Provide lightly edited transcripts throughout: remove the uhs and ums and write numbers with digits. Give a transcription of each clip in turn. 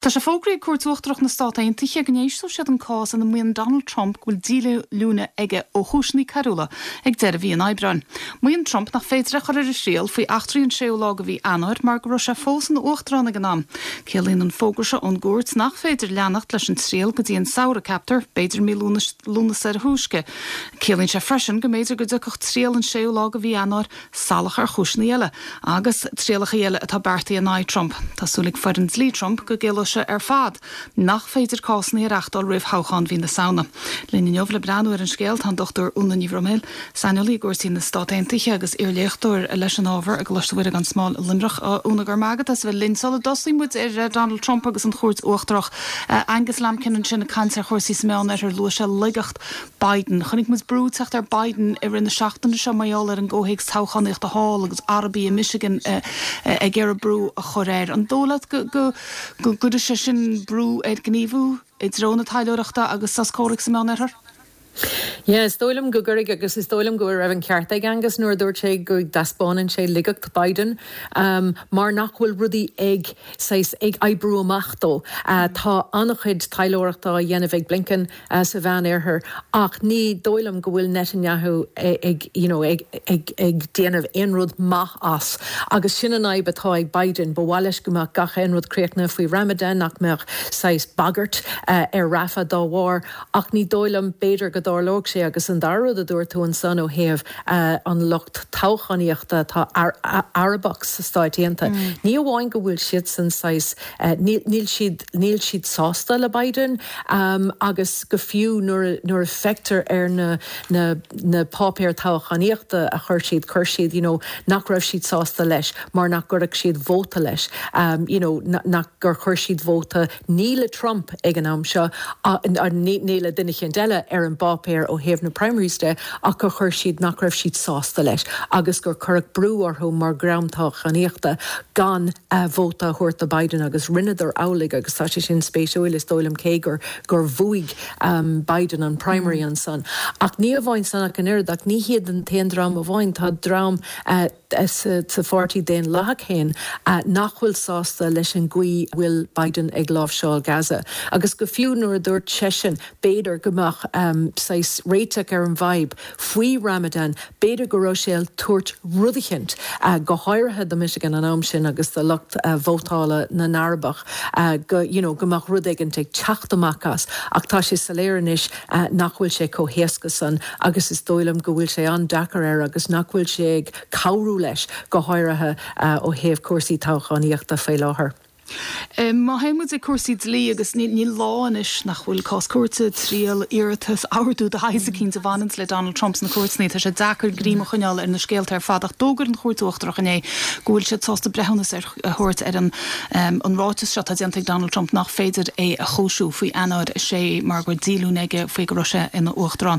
Tá sé fógraithe ag Cúirt Uachtarach na Stát Aontaithe go n-éistfidh siad an cás ina maíonn Donald Trump go bhfuil díolúine aige ó chúiseanna coiriúla ag deireadh mhí an Aibreáin. Maíonn Trump nach féidir é a chur ar a thriail faoi eachtraí an séú lá de mhí Eanáir mar go raibh sé fós ina uachtarán ag an am. Ciallaíonn an fógra seo ón gcúirt nach féidir leanacht leis an triail go dtí an samhradh, ceaptar, b'fhéidir mí Lúnasa ar a thúisce. Ciallaíonn sé freisin go mb'fhéidir go dtiocfadh triail an séú lá de mhí Eanáir salach ar chúiseanna eile agus trialacha eile atá beartaithe in aghaidh Trump. Tá súil ag foireann dlí Trump go gciallóidh sé ar fad nach féidir cásanna a reachtáil roimh thoghchán mhí na Samhna. Linn inniu le breathnú ar an scéal tá an Dr Úna Ní Bhroiméil, saineolaí i gcúrsaí na Stát Aontaithe agus iarléachtóir leis an ábhar i gColáiste Mhuire gan Smál i Luimneach. Úna, go raibh maith agat as a bheith linn. Sula dtosaíonn muid ar Donald Trump agus an Chúirt Uachtarach, Angus Lambkin ansin ag caint ar chúrsaí sa Meánoirthear, luaigh sé laigeacht Biden. Chonaic muid brú ag teacht ar Biden i rith na seachtaine seo mar gheall ar an gcomhthéacs toghchánaíochta thall agus Arabaigh i Michigan ag iarraidh brú a chur air. An dóigh leat go gcuirfidh sé sin brú air gníomhú i dtreo na taidhleoireachta agus sos comhraic sa Meánoirthear? Yeah, is dóigh liom go gcuirfidh agus is dóigh liom go raibh an ceart ag Angus nuair a dúirt sé go dtaispeánann sé laigeacht Biden mar nach bhfuil rudaí ag saghas ag oibriú amach dó. Tá an-chuid taidhleoireachta á dhéanamh ag Blinken. sa Mheánoirthear ach ní dóigh liom go bhfuil Netanyahu ag you know ag ag ag déanamh aon rud maith as agus sin an fhadhb atá ag Biden. Ba mhaith leis go mbeadh gach aon rud críochnaithe faoi Ramadan, nach mbeadh saghas bagairt ar Rafah dá bharr ach ní dóigh liom b'fhéidir go dtarlódh sé agus an dara rud a dúirt tú ansan ó thaobh an lucht toghchánaíochta atá Arabach sa Stáit Aontaithe, ní amháin go bhfuil siadsan saghas níl siad níl siad sásta le Biden agus go fiú nuair a nuair a feictear ar na na na páipéir toghchánaíochta a chuir siad chuir siad you know nach raibh siad sásta leis mar nach gcuirfeadh siad vóta leis you know nach gur chuir siad vóta ní le Trump ag an am seo ní ní le duine eicínt eile ar an bpáipéar ó thaobh na primaries de ach gur chuir siad nach raibh siad sásta leis agus gur cuireadh brú orthu mar dhream toghchánaíochta gan vóta a thabhairt do Biden agus rinneadar amhlaidh agus tá sé sin spéisiúil is dóigh liom cé gur gur bhuaigh Biden an primary ansan. Ach ní amháin san ach an oiread ach ní hiad an t-aon dream amháin, tá dream sa pháirtí Daonlathach féin nach bhfuil sásta leis an gcaoi a bhfuil Biden ag láimhseáil Gaza agus go fiú nuair a dúirt seisean b'fhéidir go mbeadh saghas réiteach ar an bhfadhb faoi Ramadan B'fhéidir go raibh sé ag tabhairt rud eicínt, go háirithe do Michigan an am sin agus do lucht vótála na nArabach, go, you know, go mbeadh rud éigint ag teacht amach as. Ach tá sé soiléir anois nach bhfuil sé chomh héasca san agus is dóigh liom go bhfuil sé an-deacair air agus nach bhfuil sé ag cabhrú leis, go háirithe ó thaobh cúrsaí toghchánaíochta faoi láthair. Má théann muid ag cúrsaí dlí, agus níl lá anois nach bhfuil cás cúirte, triail, iarratas, ordú de shaghas eicínt a bhaineanns le Donald Trump sna cúirteanna, tá sé deacair greim a choinneáil ar na scéalta ar fad. Ach d'fhógair an Chúirt Uachtarach inné go bhfuil siad sásta breithiúnas a thabhairt ar an ráiteas seo atá déanta ag Donald Trump nach féidir é a chúisiú faoi Eanáir 6 mar go raibh díolúine aige faoi go raibh sé ina Uachtarán.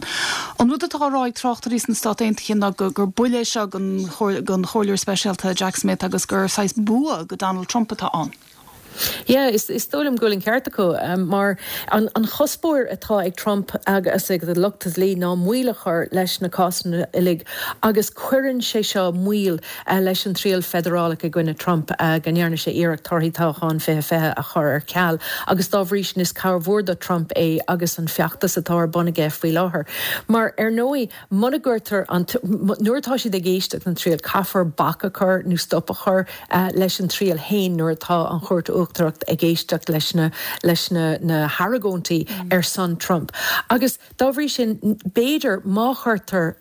An rud atá á rá ag tráchtairí sna Stáit Aontaithe ná gur buille é seo don Chomhairleoir Speisialta Jack Smith agus gur saghas bua go Donald Trump atá ann. Yeah, is dóigh liom go bhfuil an ceart acu, mar an chuspóir atá ag Trump agus ag a lucht dlí ná moill a chur leis na cásanna uilig agus cuireann sé seo moill leis an triail feidearálach i gcoinne Trump go ndearna sé iarracht torthaí toghchán 2020 a chur ar ceal agus dá bhrí sin is cabhair mhór do Trump é agus an feachtas atá ar bun aige faoi láthair. Mar ar ndóigh Muna gcuirtear an, nuair atá siad ag éisteacht an triail, caithfear bac a chur nó stop a chur leis an triail féin nuair atá an Chúirt Uachtarach ag éisteacht leis na, leis na, na hargóintí ar son Trump. Agus dá bhrí sin, b'fhéidir má chuirtear,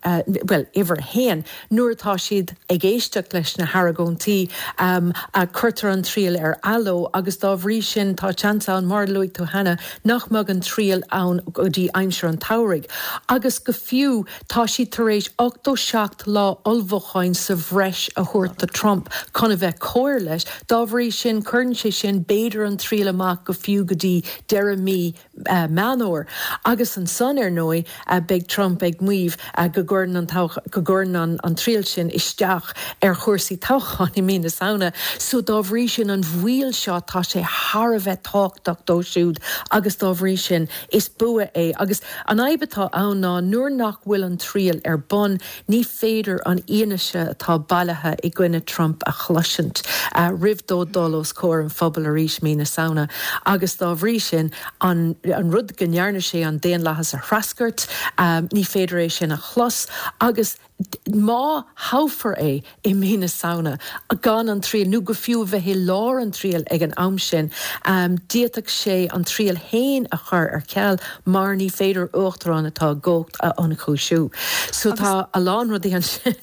bhuel, uimhir a haon, nuair atá siad ag éisteacht leis na hargóintí, cuirtear an triail ar athló agus dá bhrí sin tá seans ann, mar a luaigh tú cheana, nach mbeadh an triail ann go dtí aimsir an tsamhraidh agus go fiú tá siad tar éis 87 lá ullmhúcháin sa bhreis a thabhairt do Trump chun a bheith cóir leis. Dá bhrí sin cuireann sé sin b'fhéidir an triail amach go fiú go dtí deireadh mí. Meán Fhómhair. Agus ansan, ar ndóigh, beidh Trump ag maíomh go gcuireann an go gcuireann an triail sin isteach ar chúrsaí toghcháin i mí na Samhna. So dá bhrí sin, an mhoill seo, tá sé thar a bheith tábhachtach dó siúd agus dá bhrí sin, is bua é. Agus an fhadhb atá ann ná nuair nach bhfuil an triail ar bun, Ní féidir an fhianaise atá bailithe i gcoinne Trump a chloisint roimh dó dul os comhair an phobail arís mí na Samhna agus dá bhrí sin an rud go ndearna sé an daonlathas a threascairt, ní féidir é sin a chlos agus má thoghfar é i mí na Samhna gan an triail nó go fiú a bheith i lár an triail ag an am sin, d'fhéadfadh sé an triail féin a chur ar ceal mar ní féidir uachtarán atá i gcumhacht a ionchúisiú. So tá a lán rudaí ansin.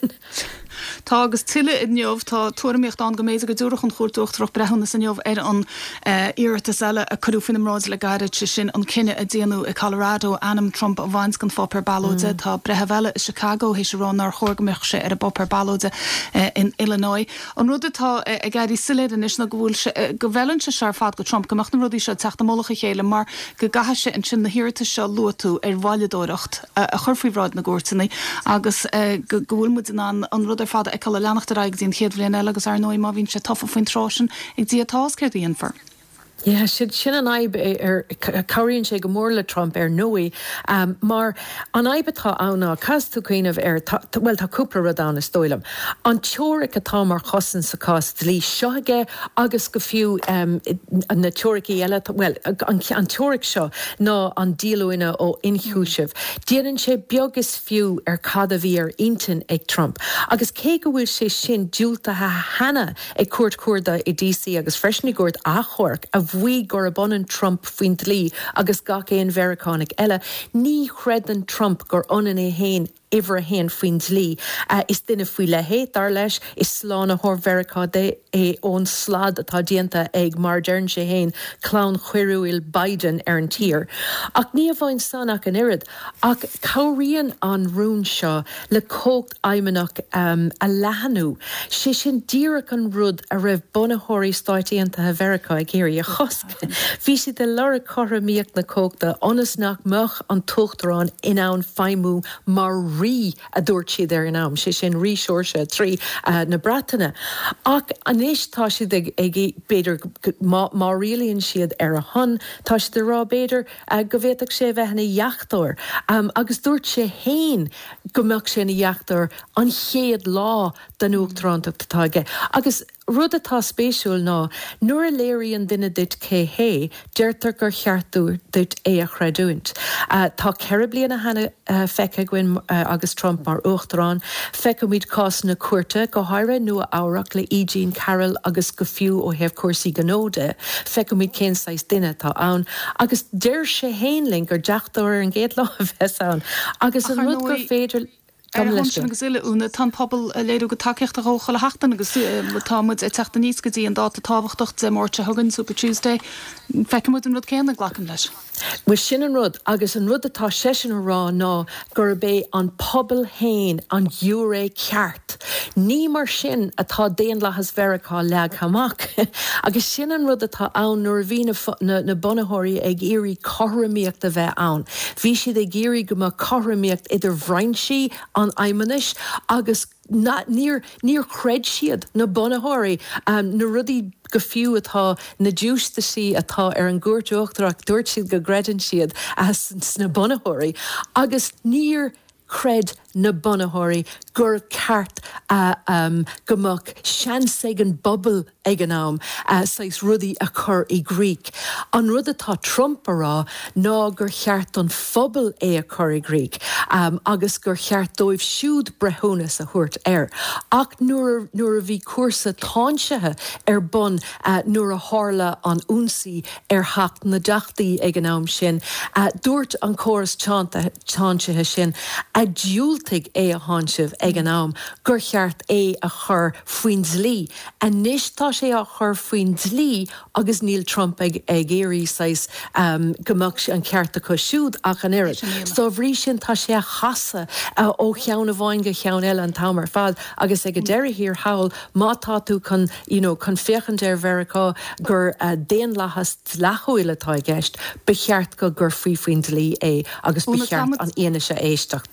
Tá agus tuilleadh inniu. Tá tuairimíocht ann go mb'fhéidir go dtabharfadh an Chúirt Uachtarach breithiúnas inniu ar an iarratas eile a cuireadh faoina mbráid le gairid, sé sin an cinneadh a déanadh i Colorado ainm Trump a bhaint den pháipéar ballóide. Tá breitheamh eile i Chicago théis a rá nár chóir go mbeadh sé ar an bpáipéar ballóide in Illinois. An rud atá ag éirí soiléir anois ná go bhfuil sé, go bhfeileann sé seo ar fad do Trump, go mbeadh na rudaí seo ag teacht i mullach a chéile mar go gcaithfidh sé ansin na hiarratais seo a luaigh tú ar mhoilleadóireacht a chur faoi bhráid na gcúirteanna agus go bhfuil muid in ann an rud ar fad a fheiceáil ag leanacht ar aghaidh go dtí an chéad bhliain eile agus ar ndóigh má bhíonn sé tofa faoin tráth sin ag Dia atá a fhios céard a dhéanfar. Yeah, sin an fhadhb ar, cabhraíonn sé go mór le Trump ar ndóigh mar an fhadhb atá ann ná, caithfidh tú cuimhneamh ar, bhuel tá cúpla rud ann is dóigh liom. An teoiric atá mar chosaint sa cás dlí seo aige agus go fiú na teoiricí eile, bhuel an teoiric seo ná an díolúine ó ionchúiseamh. Déanann sé beag is fiú ar cad a bhí ar intinn ag Trump agus cé go bhfuil sé sin diúltaithe cheana ag Cúirt Chuarda i DC agus freisin i gCúirt Achomhairc a mhaígh gurb ionann Trump faoin dlí agus gach aon Mheiriceánach eile. Ní chreideann Trump gur ionann é féin uimhir a haon faoin dlí. Is duine faoi leith é, dar leis. Is slánaitheoir Mheiriceá é ón slad atá déanta ag, mar a deireann sé féin, clann choiriúil Biden ar an tír. Ach ní amháin san ach an oiread, ach cabhraíonn an rún seo le cumhacht fheidhmeannach a leathnú, sé sin díreach an rud a raibh bunaitheoirí Stáit Aontaithe Mheiriceá ag iarraidh a chosc. Bhí siad ag lorg cothromaíocht na cumhachta ionas nach mbeadh an t-uachtarán in ann feidhmiú mar rí, a dúirt siad ag an am, sé sin Rí Seoirse 3 na Breataine. Ach anois tá siad ag, b'fhéidir, má rialaíonn siad ar a shon, tá siad ag rá, b'fhéidir, go bhféadfadh sé a bheith ina dheachtóir. Agus dúirt sé féin go mbeadh sé ina dheachtóir an chéad lá den uachtarántacht atá aige. Agus rud atá spéisiúil ná nuair a léiríonn duine duit cé hé, deirtear gur cheart duit é a chreidiúint. Tá 4 bliana cheana feicthe againn agus Trump mar uachtarán. Feicimid cásanna cúirte, go háirithe Nua Eabhrac le E. Jean Carroll agus go fiú ó thaobh cúrsaí gnó de, feicimid cén saghas duine atá ann. Agus deir sé féin linn gur deachtóir ar an gcéad lá a bheas ann. Agus an rud gur féidir. Ar a shon sin agus uile, Úna, tá an pobal ag léiriú a gcuid tacaíochta dhó chuile sheachtain agus tá muid ag teacht aníos go dtí an dáta tábhachtach Dé Máirt seo chugainn, Super Tuesday. Feicfidh muid an rud céanna, glacaim leis. Bhuel, sin an rud. Agus an rud atá seisean a rá ná gurb é an pobal féin an giúiré ceart. Ní mar sin atá daonlathas Mheiriceá leagtha amach. Agus sin an rud atá ann nuair a bhí na na bunaitheoirí ag iarraidh cothromaíocht a bheith ann. Bhí siad ag iarraidh go mbeadh cothromaíocht idir bhrainsí an fheidhmeannais agus níor níor chreid siad, na bunaitheoirí, na rudaí go fiú atá, na giúistisaí atá ar an gCúirt Uachtarach, dúirt siad go gcreideann siad sna bunaitheoirí agus níor chreid na bunaitheoirí gur ceart go mbeadh seans ag an bpobal ag an am saghas rudaí a chur i gcrích. An rud atá Trump a rá ná gur cheart don phobal é a chur i gcrích agus gur cheart dóibh siúd breithiúnas a thabhairt air. Ach nuair nuair a bhí cúrsa táinsithe ar bun nuair a tharla an ionsaí ar Theach na dTeachtaí ag an am sin, dúirt an córas táinsithe sin a diúltaigh. dhiúltaigh é a tháinseamh ag an am, gur cheart é a chur faoin dlí. Anois tá sé á chur faoin dlí agus níl Trump ag iarraidh saghas go mbeadh an ceart acu siúd ach an oiread. Dá bhrí sin tá sé á chasadh ó cheann amháin go ceann eile an t-am ar fad agus ag an deireadh thiar thall má tá tú chun you know chun féachaint ar Mheiriceá gur daonlathas dleathúil atá i gceist ba cheart go gcuirfí faoin dlí é agus ba cheart an fhianaise a éisteacht.